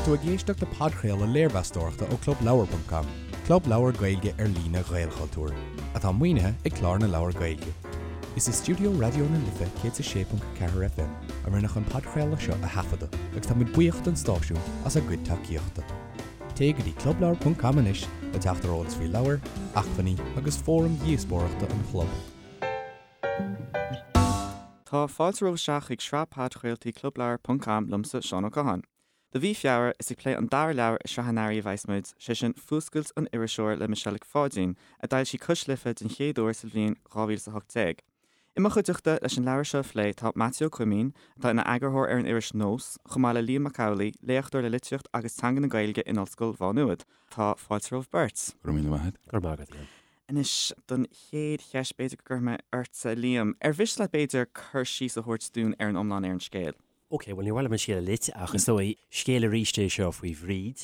tú ag éisteacht le podchraoladh léirmheastóireachta ó ClubLeabhar.com, club leabhar Gaeilge ar líne Ghaelchultúir, atá maoinithe ag Clár na Leabhar Gaeilge. Is i stiúideo Raidió na Life 106.4 FM a rinneadh an podchraoladh seo a thaifeadadh agus tá muid buíoch don stáisiún as a gcuid tacaíochta. Téigh go dtí clubleabhar.com anois le teacht ar eolas faoi leabhair, acmhainní agus fóraim dhíospóireachta an chlub. Tá fáilte romhaibh isteach chuig sraith podchraoltaí Clubleabhar ponc com liomsa, Seán Ó Catháin. Do mhí Feabhra, is ag plé an dara leabhar i sraith an earraigh a bheas muid, sé sin Fuascailt an Iriseora le Michelle Nic Pháidín, a d'fhoilsigh Cois Life den chéad uair sa bhliain 2018. I mo chuideachta leis an leabhar seo a phlé tá Maitiú Ó Coimín, atá ina eagarthóir ar an iris Nós, chomh maith le Liam Mac Amhlaigh, léachtóir le litríocht agus teanga na Gaeilge in Ollscoil Mhá Nuad. Tá fáilte romhaibh beirt. Go raibh míle maith agat. Go raibh maith agat, Liam. Anois, don chéad cheist, b'fhéidir go gcuirfidh mé ortsa, Liam. Ar mhiste leat, b'fhéidir, cur síos a thabhairt dúinn ar an iomlán ar an scéal? Ok, bhuel, níor mhaith liom an scéal a loit, ach is dóigh, scéal arís é seo faoi Bhríd,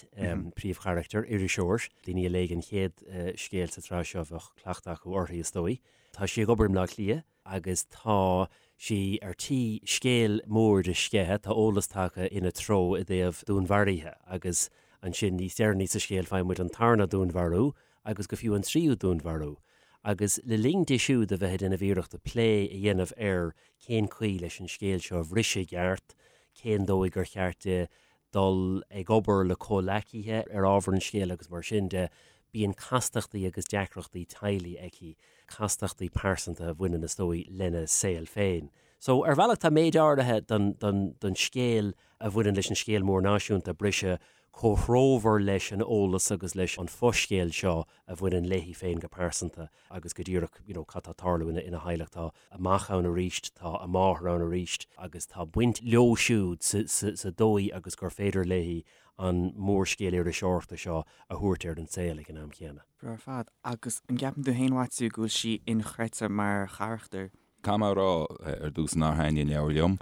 príomhcharachtar, iriseoir. Daoine a léigh an chéad scéal sa tsraith seo, bheadh cleachtadh acu uirthi, is dóigh. Tá sí ag obair i mBleá Cliath agus tá sí ar tí scéal mór a sceitheadh, tá eolas tagtha ina treo i dtaobh dúnmharaithe agus ansin níos deireanaí sa scéal faigheann muid an tarna dúnmharú agus go fiú an tríú dúnmharú, agus le linn di siúd a bheith ag déanamh iarrachta plé a dhéanamh ar cén chaoi leis an scéal seo a bhriseadh i gceart, cén dóigh gur cheart di dul ag obair le comhleacaithe ar ábhar an scéil agus mar sin de, bíonn castachtaí agus deacrachtaí teaghlaigh aici, castachtaí pearsanta a bhaineann, is dóigh, lena saol féin. So, ar bhealach tá méid áirithe den, den, den scéal a bhaineann leis an scéal mór náisiúnta, briseadh comhthreomhar leis an eolas agus leis an fho-scéal seo a bhaineann léi féin go pearsanta agus go díreach you know cad tá ag tarlú ina ina theaghlach. Tá a mac ann arís, tá a máthair ann arís agus tá baint leo siúd sa sa sa dóigh agus gur féidir léi an mórscéal iriseoireachta seo a thabhairt ar an saol ag an am chéanna. Breá ar fad. Agus an gceapann tú féin, Mhaitiú, go bhfuil sí inchreidte mar charachtar? Caithfidh mé a rá ar dtús nár thaitnigh an leabhar liom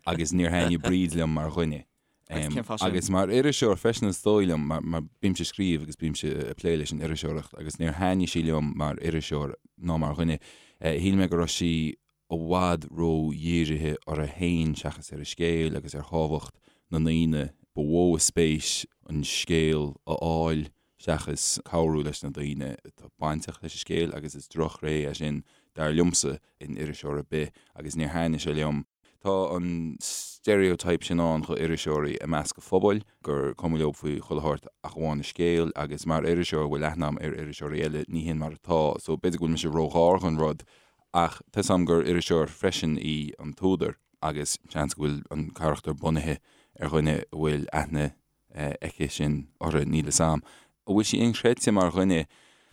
agus níor thaitnigh Bríd liom mar dhuine. Agus cén fáth sin? Agus mar iriseoir freisin is dóigh liom, mar mar bímse ag scríobh agus bímse ag plé leis an iriseoireacht agus níor thaitnigh sí liom mar iriseoir ná mar dhuine. Shíl mé go raibh sí i bhfad ró-dhírithe uirthi féin seachas ar an scéal agus ar thábhacht na ndaoine ba mhó a spéis an scéal a fháil seachas cabhrú leis na daoine atá bainteach leis an scéal agus is drochthréith é sin dar liomsa in iriseoir ar bith agus níor thaitnigh sé liom. Tá an stereotype sin ann do iriseoirí i measc an phobail, gur cuma leo faoi chuile shórt ach amháin an scéal, agus mar iriseoir a bhfuil aithne agam ar iriseoirí eile, ní hin mar atá. So b'fhéidir go bhfuil mise róghar don rud, ach tá 'fhios agam gur iriseoir freisin í an t-údar, agus seans go bhfuil an carachtar bunaithe ar dhuine a bhfuil aithne aici sin orthu, níl 'fhios a'm. An bhfuil sí inchreidte mar dhuine?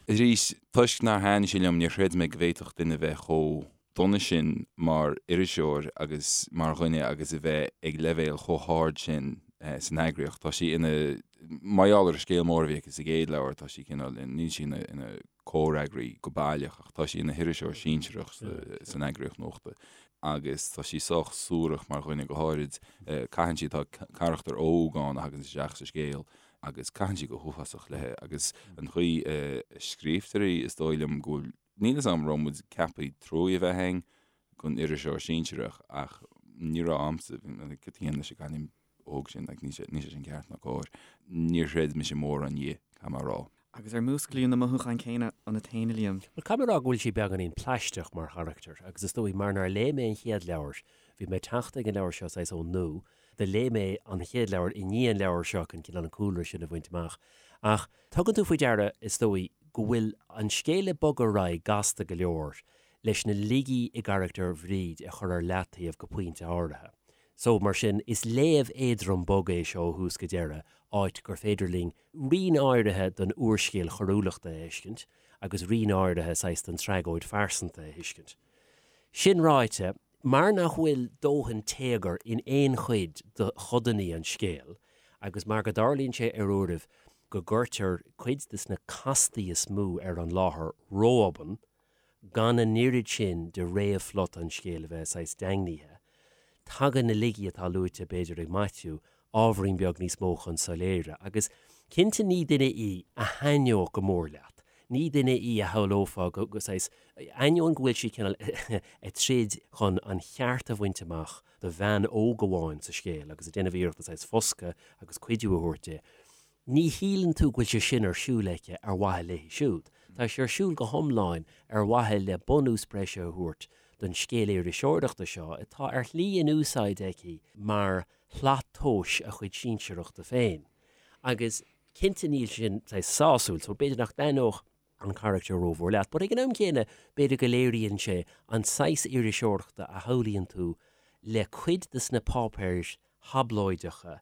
Arís, toisc nár thaitnigh sí liom, níor chreid mé go bhféadfadh duine bheith chomh dona sin mar iriseoir agus mar dhuine agus a bheith ag leibhéal chomh hard sin san eagraíocht. Tá sí ina, mar gheall ar an scéal mór a bhí aici sa gcéad leabhar, tá sí cineál, níl sí ina, ina comhfhreagraí go baileach ach tá sí ina hiriseoir sinsearach san eagraíocht nuachta agus tá sí sách suarach mar dhuine go háirid. Caitheann sí, tá carachtar óg ann a thagann isteach sa scéal agus caitheann sí go huafásach léi agus an chaoi a scríobhtar í is dóigh liom go bhfuil, níl 'fhios a'm raibh muid ceaptha trua a bheith againn don iriseoir sinsearach ach ní raibh a'msa, cad a dhéanann leis an gcailín óg sin, like, níl sé, níl sé sin ceart ná cóir. Níor chreid mise mórán di, caithfidh mé a rá. Agus ar músclaíodh na mothúcháin céanna ionat féin, a Liam? Bhuel, caithfidh mé a rá go bhfuil sí beagáinín plaisteach mar charachtar, agus is dóigh mar nár léigh mé an chéad leabhar, bhí mé ag teacht ag an leabhar seo saghas ón nua, do léigh mé an chéad leabhar i ndiaidh an leabhair seo chun cineál an cúlra sin a bhaint amach. Ach tugann tú faoi deara, is dóigh, go bhfuil an scéal ag bogadh ar aghaidh gasta go leor leis na laigí i gcarachtar Bhríd a chur ar leataobh go pointe áirithe. So, mar sin, is léamh éadrom bog é seo ó thús go deireadh, áit gur féidir linn rian áirithe den úrscéal choiriúlachta a fheiscint agus rian áirithe saghas den tragóid phearsanta a thuiscint. Sin ráite, mar nach bhfuil dóthain téagair in aon chuid de chodanna an scéil agus mar go dtarlaíonn sé ar uairibh go gcuirtear cuid de na castaí is mó ar an láthair ró-obann, gan an oiread sin de réamhphlota an scéil a bheith saghas daingnithe, tagann na laigí atá luaite, b'fhéidir, ag Maitiú, ábhairín beag níos mó chun soiléire. Agus cinnte ní duine í a thaitneodh go mór leat. Ní duine í a shamhlófá go, go saghas, ainneoin go bhfuil sí cineál ag troid chun an cheart a bhaint amach do bhean óg amháin sa scéal agus ag déanamh iarrachta saghas foscadh agus cuidiú a thabhairt di, ní shíleann tú go bhfuil sé sin ar siúl aici ar mhaithe léi siúd. Tá sé ar siúl go hiomlán ar mhaithe le bunús breise a thabhairt don scéal iriseoireachta seo atá ar shlí in úsáid aici mar shlat tomhais a chuid sinsearachta féin. Agus cinnte níl sin saghas sásúil, so b'fhéidir nach dtaitneodh an carachtar rómhór leat, but ag an am céanna b'fhéidir go léiríonn sé an saghas iriseoireachta a shamhlaíonn tú le cuid de sna páipéir thablóideacha,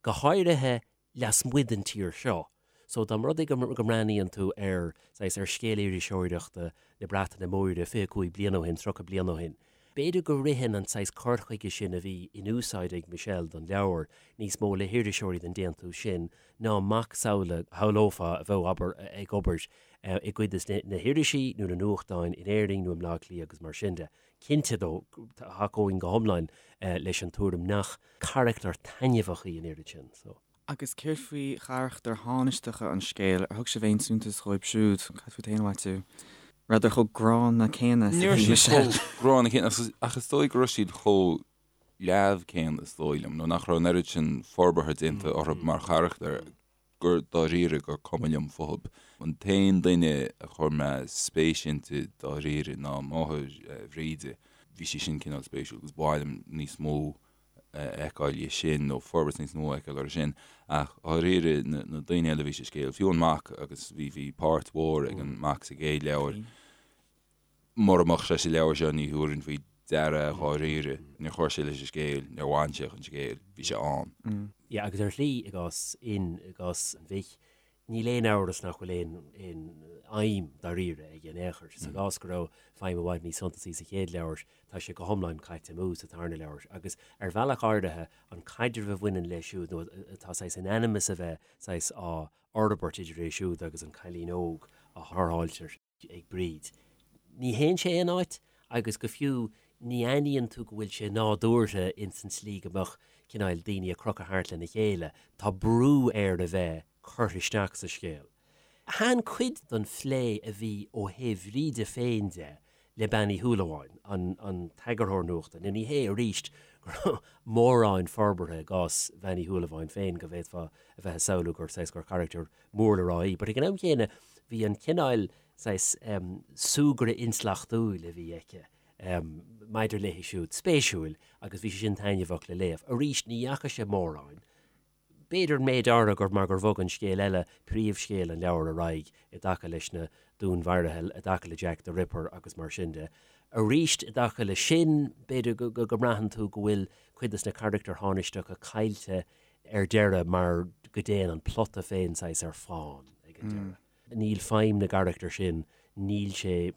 go háirithe lasmuigh den tír seo. So dá mba rud é go mbreathnaíonn tú ar, saghas, ar scéal iriseoireachta na Breataine Móire 25 bliain ó shin, 30 bliain ó shin, b'fhéidir go ritheann an saghas cur chuige sin a bhí in úsáid ag Michelle don leabhar níos mó le hiriseoirí den déantús sin ná macasamhla a shamhlófá a bheadh, abair, ag obair i gcuid de na hirisí nó na nuachtáin in Éirinn nó i mBleá Cliath agus mar sin de. Cinnte, though, thacóinn go hiomlán leis an tuairim nach carachtar taitneamhach í an oiread sin. So. Agus céard faoi charachtair thánaisteacha an scéil, ar thug sibh aon suntas dhóibh siúd? Cad fút féin, a Mhaitiú? Rabhadar chomh gránna céanna is a bhí Michelle? Ní raibh siad chomh gránna céanna, ach is dóigh go raibh siad chomh leamh céanna, is dóigh liom, nó nach raibh an oiread sin forbartha déanta orthu mar charachtair gur dáiríre gur cuma liom fúthu. An t-aon duine a chuir mé spéis inti dáiríre ná máthair Bhríde. Bhí sí sin cineál spéisiúil agus ba mhaith liom níos mó a fheiceáil dhe sin nó forbairt níos mó a fheiceáil orthu sin ach dháiríre na daoine eile a bhí sa scéal, fiú an mac agus bhí bhí páirt mhór ag an mac sa gcéad leabhar, mura mbeadh sé sa leabhar seo ní thabharfainn faoi deara é dháiríre, níor chuir sé leis an scéal, níor bhain sé chun scéil, bhí sé ann. Yeah agus ar shlí i gcás Fhinn, i gcás an mhic, Níl aon amhras nach bhfuil aon aon fheidhm dáiríre aige in aon chor. Sa gcás go raibh feidhm i bhfad níos suntasaí sa chéad leabhar, tá sé go hiomlán caite amú sa tarna leabhar. Agus ar bhealach áirithe, an caidreamh a bhaineann leis siúd, nó atá saghas in ainm is a bheith saghas á fhorbairt idir é siúd agus an cailín óg a tharrtháiltear, ag Bríd. Ní théann sé aon áit agus go fiú ní aithníonn tú go bhfuil sé nádúrtha ins an tslí go mbeadh cineáil daoine ag crochadh thart lena chéile. Tá brú air a bheith curtha isteach sa scéal. Thaitin cuid den phlé a bhí ó thaobh Bhríde féin de le Bean Uí Shúilleabháin, an an t-eagarthóir nuachta. Now ní hé arís go raibh mórán forbartha i gcás Bhean Uí Shúilleabháin féin go bhféadfá a bheith ag samhlú gur saghas gur charachtar mór le rá í. But ag an am chéanna bhí an cineál saghas súgradh intleachtúil a bhí aici maidir léi siúd spéisiúil agus bhí sé sin taitneamhach le léamh. Arís ní dheachaigh sé mórán. B'fhéidir méid áirithe gur mar gur bhog an scéal eile, príomhscéal an leabhair ar aghaidh i dtaca leis na dúnmharuithe, i dtaca le Jack the Ripper agus mar sin de. Arís i dtaca leis sin, b'fhéidir go mbraitheann tú go bhfuil cuid de na carachtair thánaisteacha caillte ar deireadh mar go dtéann an plota féin saghas ar fán ag an deireadh. Níl feidhm na gcarachtar sin, níl sé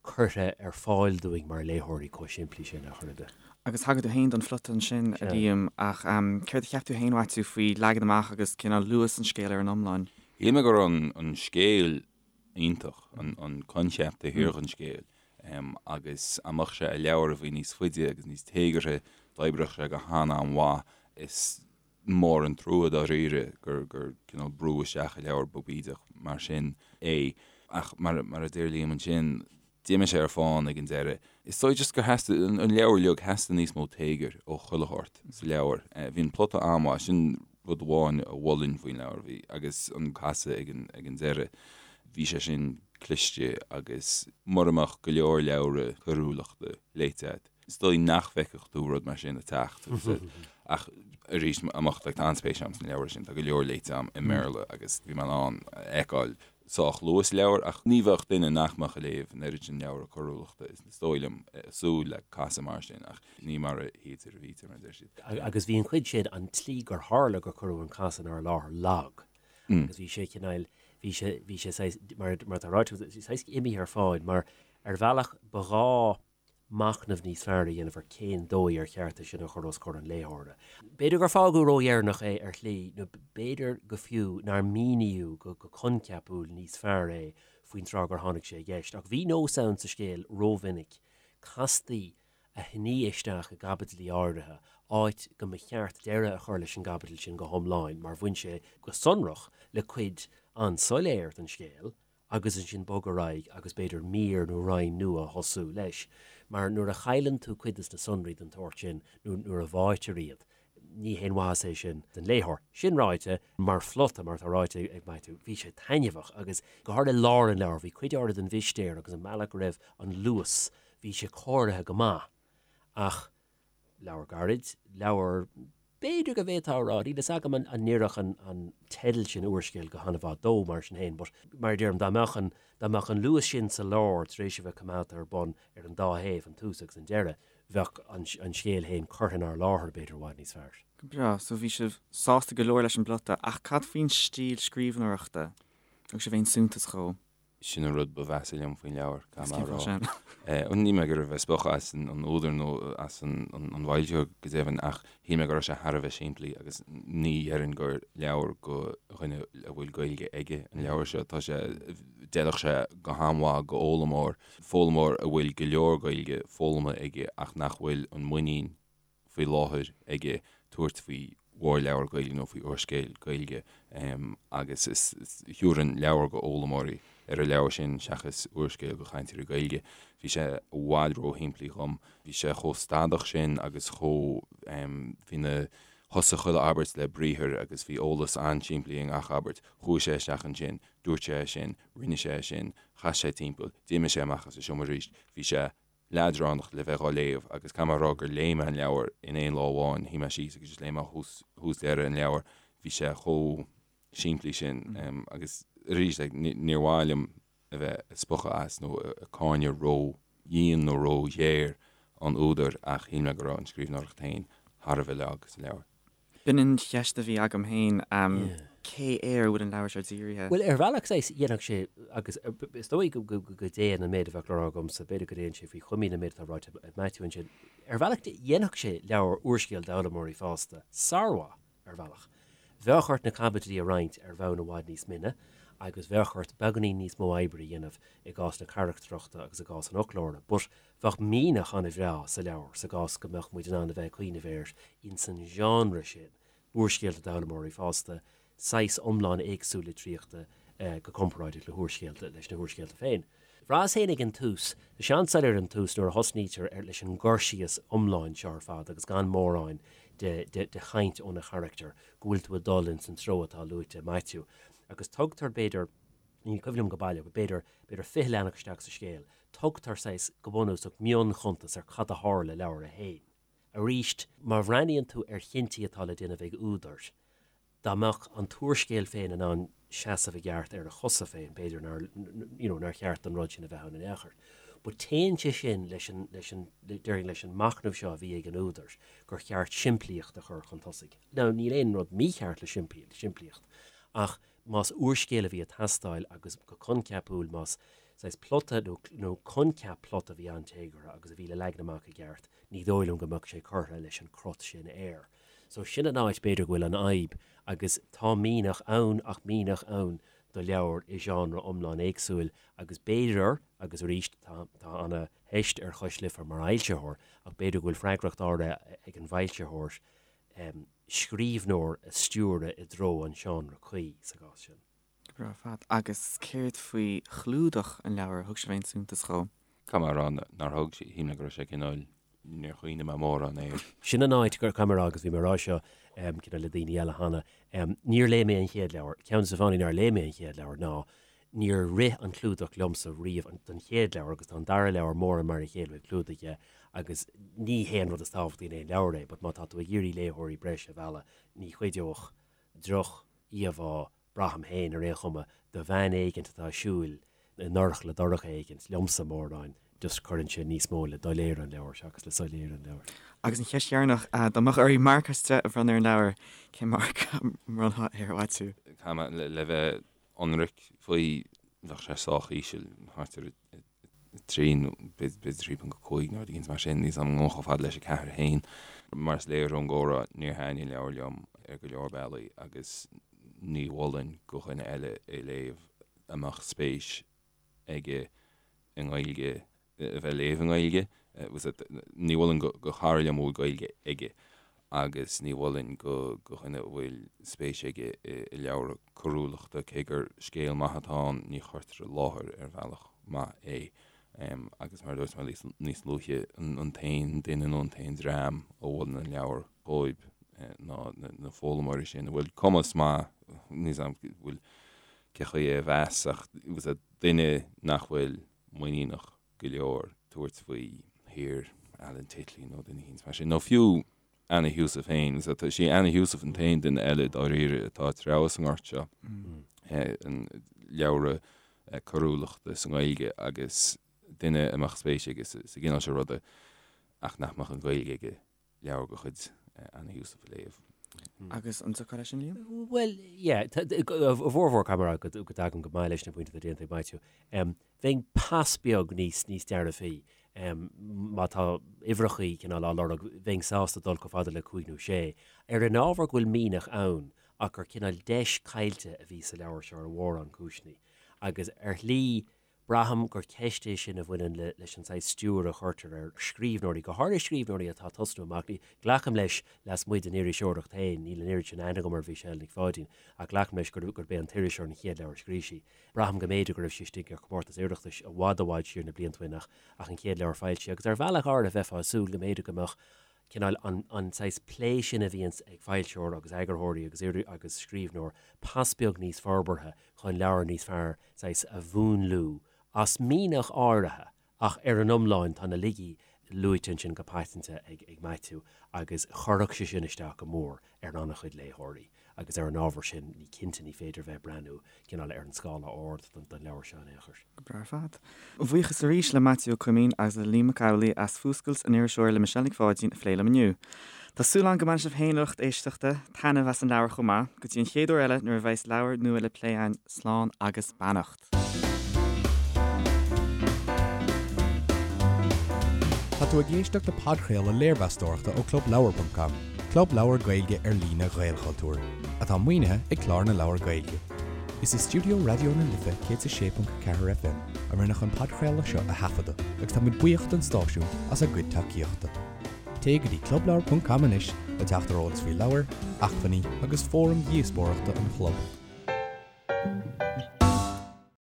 curtha ar fáil dúinn mar léitheoirí chomh simplí sin ar chor ar bith. Agus thagair tú féin don phlota ansin, a Liam, ach céard a cheap tú féin, a Mhaitiú, faoi leagan amach agus cineál luas an scéil ar an iomlán? Shíl mé go raibh an scéal iontach, an coincheap taobh thiar den scéal, agus dá mbeadh sé i leabhar a bhí níos faide agus níos téagartha, d'oibreodh sé go han-an-mhaith. Is mór an trua dáiríre gur gur cineál brúdh isteach i leabhar beag bídeach mar sin é. Ach mar mar a deir Liam ansin, d'imigh sé ar fán ag an deireadh. Is dóigh just gur theastaigh, an leabhar uilig, theastaigh níos mó téagair ó chuile shórt sa leabhar. Bhí an plota an-mhaith, sin rud amháin a mholfainn faoin leabhar, bhí, agus an casadh ag an ag an deireadh, bhí sé sin cliste agus mura mbeadh go leor leabhra coiriúlachta léite agat, Is dóigh nach bhfeicfeadh tú rud mar sin ag teacht. Ach arís, amach, like, tá an-spéis agam sna leabhair sin, tá go leor léite agam i mBéarla agus bhí mé in ann a fheiceáil sách luath sa leabhar ach ní bheadh duine nach mbeadh ag léamh an oiread sin leabhra coiriúlachta, is dóigh liom, ag súil le casadh mar sin ach ní mar a shuítear a bhítear, mar a deir siad. Agus bhí an chuid sin, an tslí gur tharla gur cuireadh an casadh inár láthair lag agus bhí sé cineál, bhí sé, bhí sé saghas, mar atá ráite agat, saghas imithe ar fán mar ar bhealach ba ghá machnamh níos fearr a dhéanamh ar cén dóigh ar cheart é sin a chur os comhair an léitheora. B'fhéidir gur fágadh ródheireanach é ar shlí, nó b'fhéidir go fiú nár míníodh go coincheapúil níos fearr é faoin tráth gur tháinig sé i gceist. Ach bhí nós ann sa scéal rómhinic castaí a shní isteach i gcaibidlí áirithe, áit go mba cheart deireadh a chur leis an gcaibidil sin go hiomlán mar bhain sé go sonrach le cuid an-soiléir den scéal. agus ansin bog ar aghaidh agus b'fhéidir mír nó roinn nua a thosú leis. Mar nuair a chailleann tú cuid des na sonraí den tsórt sin nó nuair a bháitear iad, ní haon mhaitheas é sin don léitheoir. Sin ráite, mar phlota, mar atá ráite ag Maitiú, bhí sé taitneamhach agus go háirithe i lár an leabhair, bhí cuid áirithe den mhistéir agus an bealach go raibh an luas, bhí sé cóirithe go maith. Ach leabhar gairid, leabhar b'fhéidir go bhféadfá a rá, níl fhios agam an n-oirfeadh an teideal sin úrscéal go han-mhaith dó mar sin féin, but mar a deirim, dá mbeadh an, dá mbeadh an luas sin sa lár tar éis a bheith coimeádta ar bun ar an dá thaobh, an tús agus an deireadh, bheadh an, an scéal féin curtha inár láthair b'fhéidir i bhfad níos fearr. Go breá, so bhí sibh sásta go leor leis an bplota, ach cad faoin stíl scríbhneoireachta? Thug sibh aon suntas dhó? Sin an rud ba mheasa liom faoin leabhar, caithfidh mé a rá. Níl mé ag iarraidh a bheith ag spochadh as an údar nó as an bhfoilsitheoir go deimhin ach shíl mé go raibh sé thar a bheith simplí agus ní dhéarfainn gur leabhar go dhuine a bhfuil Gaeilge aige an leabhar seo. Tá sé, d'fheilfeadh sé go han-mhaith go fhoghlaimeoir, foghlaimeoir a bhfuil go leor Gaeilge foghlamtha aige ach nach bhfuil an muinín faoi láthair aige tabhairt faoi mhórleabhar Gaeilge nó faoi úrscéal Gaeilge agus is thabharfainn leabhar go fhoghlaimeoirí ar an leabhar sin seachas úrscéal go chainteoirí Gaeilge. Bhí sé i bhfad róshimplí dhom. Bhí sé chomh stadach sin agus chomh, bhí na, thosaigh chuile abairt le briathar agus bhí eolas an-simplí i ngach abairt. Chuaigh sé isteach ansin, dúirt sé é sin, rinne sé é sin, chas sé timpeall, d'imigh sé amach as an seomra arís. Bhí sé leadránach le bheith dhá léamh agus caithfidh mé a rá gur léigh mé an leabhar in aon lá amháin, shuigh mé síos agus just léigh mé ó thús deireadh an leabhar, bhí sé chomh simplí sin agus arís like níor mhaith liom a bheith ag spochadh as nó ag cáineadh ró dhian nó ró ghéar an údair ach shíl mé go raibh an scríbhneoireacht féin thar a bheith lag sa leabhar. B'in an cheist a bhí agam féin, cé air a bhfuil an leabhar seo dírithe? Bhuel, ar bhealach, saghas, dhéanfadh sé, agus is dóigh go dtéann an méid a bheadh le rá agamsa, b'fhéidir go dtéann sé faoi chuimín an méid atá ráite ag Maitiú ansin, ar bhealach, dhéanfadh sé leabhar úrscéal d'fhoghlaimeoirí fásta sármhaith, ar bhealach. Bheadh ort na caibidlí a roinnt ar bhonn i bhfad níos mine agus bheadh ort beagáinín níos mó oibre a dhéanamh i gcás na carachtrachta agus i gcás an fhoclóra, but Bheadh mianach an-bhreá sa leabhar sa gcás go mbeadh muid in ann a bheith ag cuimhneamh air ins an genre sin, úrscéalta d'fhoghlaimeoirí fásta, saghas iomlán éagsúil litríochta go comparáideach le húrscéalta, leis na húrscéalta féin. Bhraitheas féin ag an tús, tá sé an-soiléir an tús nuair a thosnaítear ar leis an gcur síos iomlán seo ar fad agus gan mórán de de chaint ó na charachtair, go bhfuil tú ag dul ins an treo atá luaite ag Maitiú. Agus tugtar, b'fhéidir, ní cuimhin liom go baileach, b'fhéidir, b'fhéidir 20 leathanach isteach sa scéal, tugtar saghas, go bunúsach, mionchuntas ar cad a tharla i leabhar a haon. Arís, má bhreathnaíonn tú ar chinntí atá le déanamh ag údair, dá mbeadh an t-úrscéal féin in ann seasamh i gceart ar a chosa féin, b'fhéidir nár, you know, nár cheart don rud sin a bheith ann in aon chor. But téann sé sin leis an, leis an, déarfainn leis an machnamh seo a bhí ag an údar, gur cheart simplíocht a chur chun tosaigh. Now, níl aon rud mícheart le simplíocht, ach más úrscéal a bhí ag teastáil agus go coincheapúil más saghas plota nó nó coincheap plota a bhí an-téagartha agus a bhí le leagan amach i gceart, ní dóigh liom go mbeadh sé curtha leis an crot sin air. So sin an áit b'fhéidir go bhfuil an fhadhb agus tá mianach ann ach mianach ann do leabhar i genre iomlán éagsúil agus b'fhéidir, agus arís tá tá ana theist ar Chois Life mar fhoilsitheoir ach b'fhéidir go bhfuil freagracht áirithe ag an bhfoilsitheoir scríbhneoir a stiúradh i dtreo an seánra cuí sa gcás sin. Go breá ar fad. Agus céard faoi chlúdach an leabhair? Thug sibh aon suntas dhó? Caithfidh mé a rá nár thug, shíl mé go raibh sé cineál, níor chuimhnigh mé mórán air. Sin an áit gur, caithfidh mé a rá, agus bhí mé ag rá seo cineál le daoine eile cheana, níor léigh mé an chéad leabhar. Ceann de na fáthanna nár léigh mé an chéad leabhar ná Níor rith an clúdach liomsa riamh don chéad leabhar agus tá an dara leabhar mórán mar a chéile ó thaobh clúdaigh dhe agus ní hé an rud is tábhachtaí in aon leabhar é but má tá tú ag iarraidh léitheoirí breise a mhealladh ní chuideodh droch-íomhá, braithim féin ar aon chuma, de bhean éigint atá ag siúl i ndorchla dorcha éigint, liomsa mórán, just cuireann sé níos mó le doiléire an leabhair seachas le soiléire an leabhair. Agus an cheist dheireanach, dá mbeadh oraibh marc as 10 a bhronnadh ar an leabhar, cén marc a mbronnfá air, a Mhaitiú? Caithfidh mé le bheith ionraic faoi, bheadh sé sách íseal, thart ar 3 nó b'fhéidir 3.5 nó rud éigin mar sin, níl 's agam an ngabhfainn chomh fada leis an 4 féin. Mar is léir ón gcomhrá, níor thaitnigh an leabhar liom ar go leor bealaí agus ní mholfainn go dhuine eile é léamh a mbeadh spéis aige i nGaeilge, a bheith ag léamh i nGaeilge. Ní mholfainn go chara liom a bhfuil Gaeilge aige. Agus ní mholfainn do dhuine a bhfuil spéis aige i leabhra coiriúlachta, cé gur scéal maith atá ann, ní chuirtear i láthair ar bhealach maith é. Agus mar a dúirt mé níos luaithe, an t-aon duine nó an t-aon dream a mholann an leabhar dhóibh ná na foghlaimeoirí sin a bhfuil cumas maith, níl 's a'm bhfuil cé chaoi é a mheas ach duine nach bhfuil muiníneach go leor tabhairt faoi shaothar Alan Titley nó duine éicint mar sin, nó fiú Anna Heussaff féin. Is í Anna Heussaff an t-aon duine eile dáiríre atá ag treabhadh sa ngort seo, an leabhra coiriúlachta sa nGaeilge agus duine a mbeadh spéis aige sa gcineál seo ruda ach nach mbeadh an Ghaeilge aige leabhar de chuid Anna Heussaff a léamh. Agus an dtiocfá leis sin, Liam? Bhuel, yeah, i bhformhór caithfidh mé a rá go dtagaim go maith leis na pointí atá déanta ag Maitiú. Bheinn pas beag níos níos dearfaí. Má tá uimhreachaí cineál á lorg, bheinn sásta dul chomh fada le cúig nó sé. Ar an ábhar go bhfuil mianach ann ach gur cineál deis caillte a bhí sa leabhar seo ar mhórán cúiseanna. Agus ar shlí, Braithim gur ceist é sin a bhaineann leis an saghas stiúir a chuirtear ar scríbhneoirí, go háirithe scríbhneoirí atá ag tosnú amach. Glacaim leis, lasmuigh den iriseoireacht féin, níl an oiread sin aithne agam ar Mhichelle Nic Pháidín, ach glacaim leis gurb é An tIriseoir an chéad leabhar a scríobh sí. Braithim go mb'fhéidir go raibh sí istigh ar chomórtas Oireachtais i bhfad i bhfad siar na blianta ó shin ach ach an chéad leabhar foilsithe. Agus ar bhealach áirithe bheifeá ag súil go mb'fhéidir go mbeadh cineál an an saghas plé sin a bhíonns ag foilsitheoir agus eagarthóirí agus agus scríbhneoir pas beag níos forbartha chun leabhar níos fearr saghas a mhúnlú as mianach áirithe ach ar an iomlán tá na laigí luaite ansin go paiteanta ag ag Maitiú agus chuirfeadh sé sin isteach go mór ar an-chuid léitheoirí agus ar an ábhar sin ní cinnte ní féidir bheith ag breathnú cineál ar an scála ard don don leabhar seo in aon chor. Go breá ar fad. Buíochas arís le Maitiú Ó Coimín agus le Liam Mac Amhlaigh as Fuascailt an Iriseora le Michelle Nic Pháidín a phlé liom inniu. Tá súil agam go mbainfidh sibh féin a lucht éisteachta taitneamh as an leabhar chomh maith. Go dtí an chéad uair eile nuair a bheas leabhar nua le plé againn, slán agus beannacht. Tá tú ag éisteacht le podchraoladh léirmheastóireachta ó ClubLeabhar.com, club leabhar Gaeilge ar líne Ghaelchultúir, atá maoinithe ag Clár na Leabhar Gaeilge. Is i stiúideo Raidió na Life 106.4 FM a rinneadh an podchraoladh seo a thaifeadadh agus táimid buíoch don stáisiún as a gcuid tacaíochta. Téigh go dtí clubleabhar.com anois le teacht ar eolas faoi leabhair, acmhainní agus fóraim dhíospóireachta an chlub.